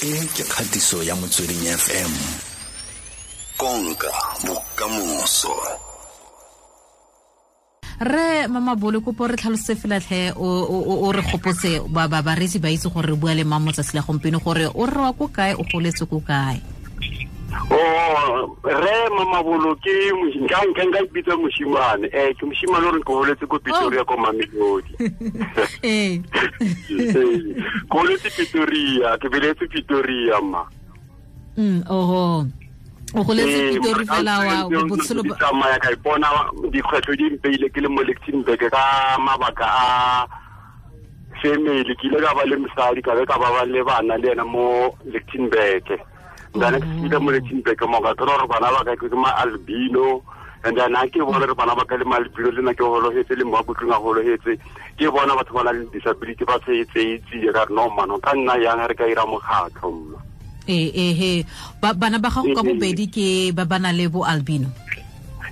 E ke kgatiso ya Motsweding FM. Konka bokamoso. Re Mamabolo, kopo re tlhalose fela tlhe, o re gopotse ba bareetsi ba itse gore re bua le mang motsatsi la gompieno, gore o re wa ko kae, o goletse ko kae. Oh, re Mamabolo ke nka ipitsa moshimane. Ke moshimane o re ke holetse ko Pretoria, ko Mamelodi. Ke holetse Pretoria, ke beletse Pretoria, ma. Oho. O goletse Pretoria fela wa botshelo ba tsamaya ka ipona dikgwetlho di mpeile ke le mo Lichtenburg ka mabaka a family. Ke ile ka ba le mosadi, ka be ka ba le bana le ena mo Lichtenburg. Then ke file mo Lichtenburg mo ka thola gore bana ba ka ke ma albino, and then ha ke bona re bana ba ka le ma albino, le nna ke hologetse, le mo kutlung a hologetse, ke bona batho ba na le disability ba tse ka re no mano ka nna yang re ka ira mokgatlho mma. Ee, bana ba gago ka bobedi ke ba bana le bo albino?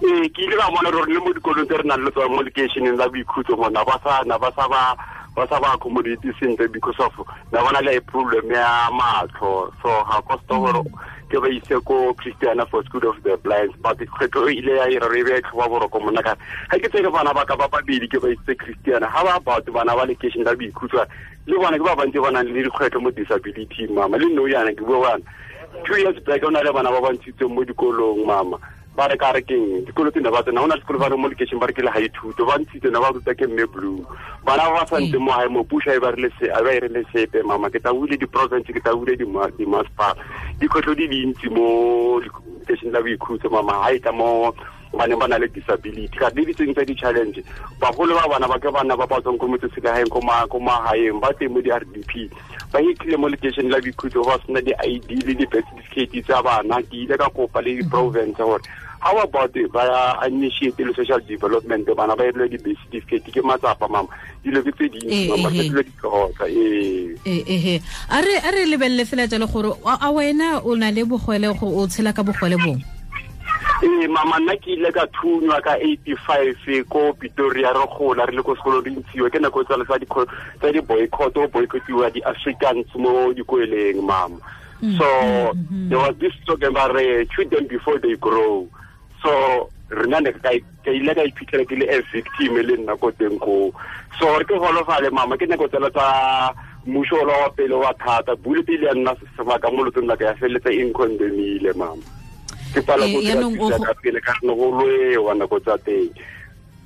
Ee, ke ile ka bona gore le mo dikolong tse re nang le tsone mo lekeišeneng la Boikhutso mona ba sa na ba sa ba ba sa ba accommodate sentle because of na bona le problem ya matlho, so ga costa gore ke ba ise ko Christiana for School of the Blinds, but kgwetlho e ile ya ira re be tlhoba boroko mona ka ga ke tsere bana ba ka ba babedi ke ba isitse Christiana. Ga ba batho bana ba lekeišene la Boikhutso le bona ke ba bantsi ba nang le dikgwetlho mo disability, mama. Le no yana ke bua bana 2 years back o na le bana ba ba ntshitseng mo dikolong, mama. Ba re ka re keng dikolo tse ne ba tsena, go na le sekolo ba re mo lekeišeng ba re ke le ga ithuto, ba ntshitse, ne ba ruta ke mme Blue. Bana ba ba santse mo gae mo puso e ba rile se a ba e rile sepe, mama. Ke tabule di-province, ke tabule di-masepala, dikgwetlho di dintsi mo lekeišeng la Boikhutso, mama. Ga e tla mo baneng ba na le disability ka le ditseng tsa di-challenge, bagolo ba bana ba ke bana ba ba tswang ko motseselegaeng, ko magaeng, ba teng mo di-RDP, ba hitlhile mo lekeišeng la Boikhutso ba sena di-ID le di-birth certificate tsa bana. Ke ile ka kopa le di-province gore how about ba initiate le social development, bana ba irelwe di-birth certificate. Ke matsapa, mama, dilo ke tse dintsi, mama, ke dilo di tlhoka, ee. Ee, a re lebelele fela jalo gore a wena o na le bogole, go o tshela ka bogole bong? Ee, mama, nna ke ile ka thunywa ka 85 ko Pretoria. Re gola re le ko sekolong, re ntshiwa ke nako tsale tsa di-boycott, o boycottiwa di-Africans mo dikoleng, mama. So there was this slogan ba re, "Shoot them before they grow." So rena ne ka ile ka iphitlhela ke le a victim le nna ko teng koo, so gore ke golofale, mama. Ke nako tsela tsa mmuso ola wa pele wa thata bule pele ya nna sebaka mo lotsong la ka, ya feleletsa e ncondemnile, mama. Ke pala go dira ka pele ka ne go lwewa nako tsa teng.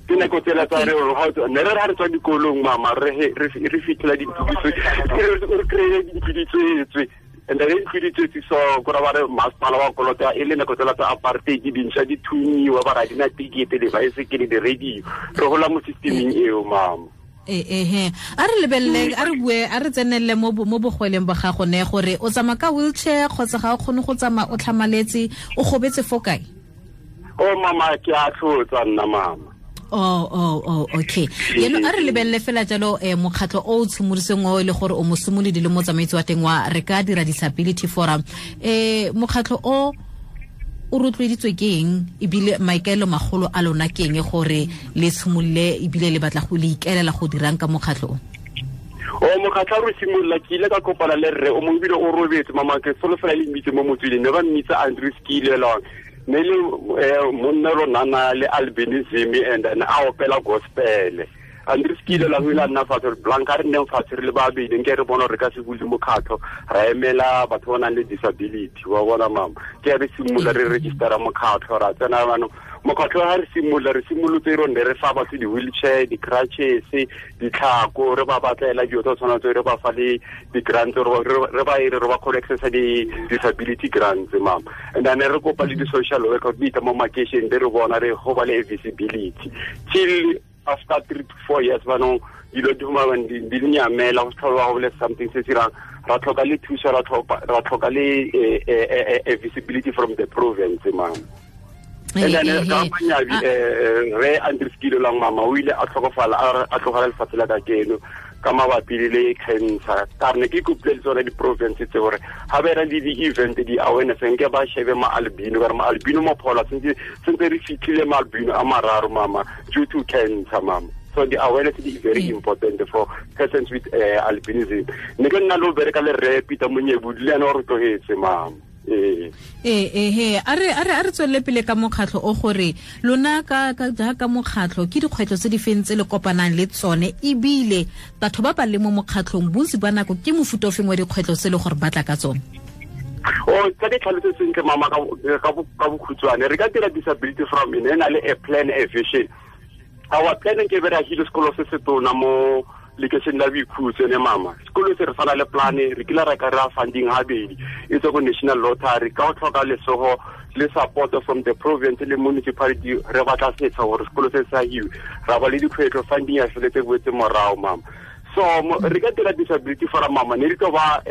Ke nako tsela tsa re ne re ra re tswa dikolong, mama, re fitlhela dintlo re kry-e dintlo di tswetswe, and then ntlo di tswetse, so kora ba re masepala wa kolota, e le nako tsela tsa apartheid, dintšha di thunyiwa, ba ra dina tikete, dibaesekele, di-radio. Re gola mo systeming eo, mama. Ehe, a re lebelele, a re bue, a re tsenelele mo bogweleng ba gago ne, gore o tsamaya ka wheelchair kgotsa ga o kgone go tsamaya, o tlhamaletse, o gobetse fo kae? O mama, ke a tlhotsa nna, mama. Oh, okay. Yeno a re lebelele fela jalo mokgatlho o o tshimoloseng o e le gore o mosimolodi le motsamaisi wa teng wa Re Ka Dira Disability Forum. Mokgatlho o o rotloeditswe ke eng, ebile maikaelelo magolo a lona ke eng gore le tshimolole, ebile le batla go le ikaelela go dirang ka mokgatlho o? O mokgatlho re simolola, ke ile ka kopana le rre o mongwe, ebile o robetse, mama. Ke solofela le mmitse mo Motsweding, ne ba mmitsa Andrew Skilelong, ne le monna ronana le albinism and then a opela gospel. Andrew Skilelong o ile a nna fatshe re blanka, re nneng fatshe re le babedi, nke re bona gore re ka se bule mokgatlho ra emela batho ba nang le disability wa bona, mama. Ke re simolola re registera mokgatlho, ra tsena banong mokgatlho. Ga re simolola, re simolotse ro ne re fa batho di-wheelchair, di-crutches, ditlhako, re ba batlela dilo tsa tshwana tse, re ba fa le di-grants, re ba ere re ba kgone accessa di-disability grants, mama. And then re kopa le di-social worker di tla mo makeišeneng, di re bona, re go ba le visibility till after 3 to 4 years banong dilo di humana di nyamela, go tlhola go le something se se dirang. Ra tlhoka le thuso, ra tlhoka le visibility from the province, mama. And then ka manyabi re Andrew Skilolang, mama, o ile a tlhokofala, a tlogela lefatshe la ka keno ka mabapi le cancer. Ka re ne ke kopile le tsone di-province tse gore ga ba era le di-event, di-awareness, nke ba shebe ma-albino, ka re ma-albino mo phola sentse re fitlhile ma-albino a mararo, mama, due to cancer, mama. So the awareness is very important for persons with albinism. Ne ke nna lo bereka le rre Peter Monyebudi le ena o re tlogetse, mama. Ee, a re tswelele pele ka mokgatlho o, gore lona ka jaaka mokgatlho ke dikgwetlho tse di feng tse le kopanang le tsone, ebile batho ba ba le mo mokgatlhong bontsi ba nako ke mofuta o feng wa dikgwetlho tse le gore ba tla ka tsone? O tsa ke tlhalose sentle, mama, ka bokhutshwane. Re ka dira disability from e na le a plan, a vision. Our plan ke be re agile sekolo se se tona mo lekešeng la Boikhutso ne, mama. Sekolo se re tshwana le plane, re kile ra kry-a funding habedi e tswa ko National Lottery, ka go tlhoka lesogo le support from the province le municipality. Re batla setsha gore sekolo se sa hiwe, ra ba le dikgwetlho, funding ya feletse boetse morago, mama. So re ka dira disability forum, mama, ne re tlo ba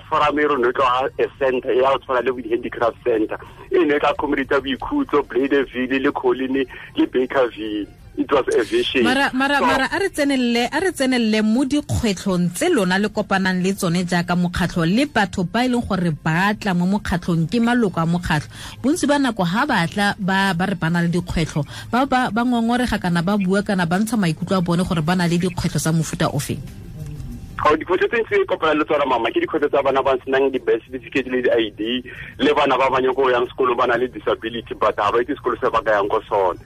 forum e rone tlo a center ya go tshwana le bo di-handicraft center, e ne e tla accommodate Boikhutso, Bladeville le Colline le Bakerville. It was a vision. Mara a re tsenelele mo dikgwetlhong tse lona le kopanang le tsone jaaka mokgatlho, le batho ba e leng gore ba tla mo mokgatlhong ke maloko a mokgatlho. Bontsi ba nako ha ba tla ba re ba na le dikgwetlho, ba ngongorega kana ba bua kana ba ntsha maikutlo a bone gore ba na le dikgwetlho tsa mofuta ofeng? Dikgwetlho tse ntse kopana le tsona, mama, ke dikgwetlho tsa bana ba senang di-birth certificate le di-ID, le bana ba banyeng ko yang sekolo ba na le disability but ha ba itse sekolo se ba ka yang ko sone.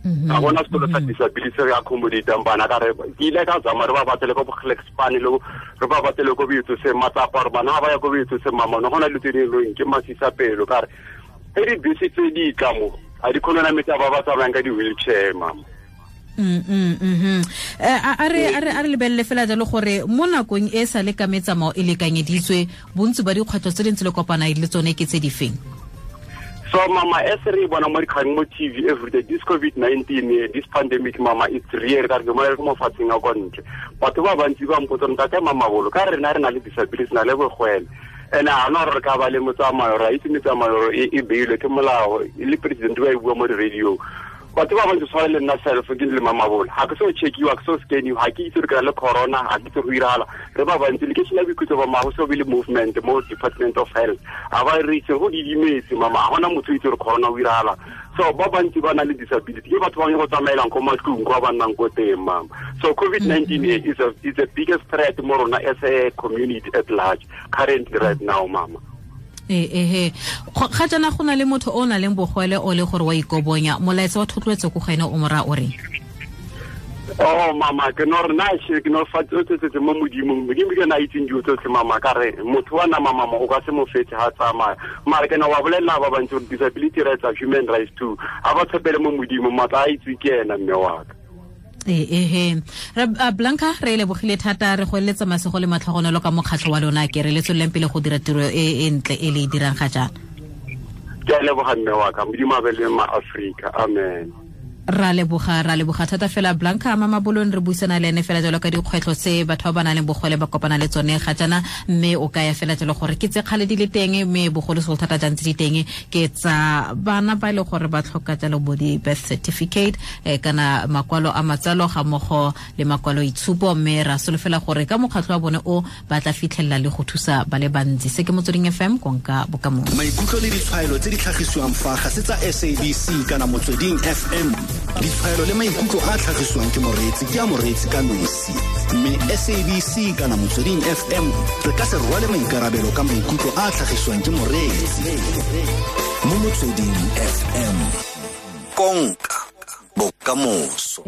Ga gona sekolo sa disability re accommodatang bana. Ka re ke ile ka zama re ba batlele ko Bogelekspane, le re ba batlele ko Boitsose matsapa, gore bana ga ba ya ko Boitsose, mama, no gona dilo tse di leng ke masisa pelo. Ka re ge dibese tse di tla mo, ga di kgone nametsa ba ba tsamayang ka di-wheelchair, mama. A re lebelele fela jalo gore mo nakong e sa le ka metsamao e lekanyeditswe, bontsi ba dikgwetlho tse dintsi le kopana le tsone ke tse di feng? So mama, as re bona mo dikgang mo TV everyday, this COVID-19, this pandemic, mama, it's real. Ka re mo re mo fatseng a kwa ntle, batho ba bantsi ba mpotsa, ntate Mamabolo, ka rena re na le disability, na le bogwele, and a na re ka ba le motsamao? Ra itse metsamao e beilwe ke molao, le president ba e bua mo di-radio. Batho ba bantsi tshwana le nna self ke le Mamabolo, ga ke so checkiwa, ke so scaniwa, ga ke itse re kry le corona, ga ke itse go iragala. Re ba bantsi lekešene la Boikhutso ba mago so be le movement mo Department of Health, ga ba re itse go didimetse, mama, ga gona motho o itse gore corona o iragala. So ba bantsi ba na le disability ke batho ba go tsamaelang ko matlong kwa ba nnang ko teng, mama. So COVID-19 is the biggest threat mo rona as a community at large currently right now, mama. Ehe, ga jaana go na le motho o na leng bogwele o le gore wa ikobonya, molaetsa wa thotloetso ko go ene o mora o reng? Oh mama, ke no re na ke no fa tse mo Modimong. Modimo ke na itseng dilo tsotlhe, mama. Ka re motho wa nama, mama, o ka se mo fetse ha tsamaya, mara ke na wa bolelela ba bantsi gore disability rights are human rights too. Ha ba tshepele mo Modimo, matla a itse ke ena, mme wa ka. Ehe, Blanca, re lebogile thata, re go eletsa masego le matlhogonolo ka mokgatlho wa lona, ke re le tsweleleng pele go dira tiro e ntle e le e dirang ga jaana. Ke a leboga, mme wa ka. Modimo a be le ma-Afrika, amen. Ra leboga thata fela Blanca Mamabolong, re buisana le ene fela jalo ka dikgwetlho tse batho ba ba nang le bogole ba kopana le tsone ga jaana, mme o kaya fela jalo gore ke tse kgale di le teng, mme bogolosegolo thata jang tse di teng ke tsa bana ba e le gore ba tlhoka jalo bo di-birth certificate kana makwalo a matsalo ga mmogo le makwalo itshupo, mme ra solofela gore ka mokgatlho wa bone o ba tla fitlhelela le go thusa ba le bantsi. Se ke Motsweding FM, konka bokamoso. Maikutlo le ditshwaelo tse di tlhagisiwang fa ga se tsa SABC kana Motsweding FM. Ditshwaelo le maikutlo a tlhagisiwang ke moreetsi ke a moreetsi ka nosi, mme SABC kana Motsweding FM re ka se rwale maikarabelo ka maikutlo a tlhagisiwang ke moreetsi mo Motsweding FM. Konka bokamoso.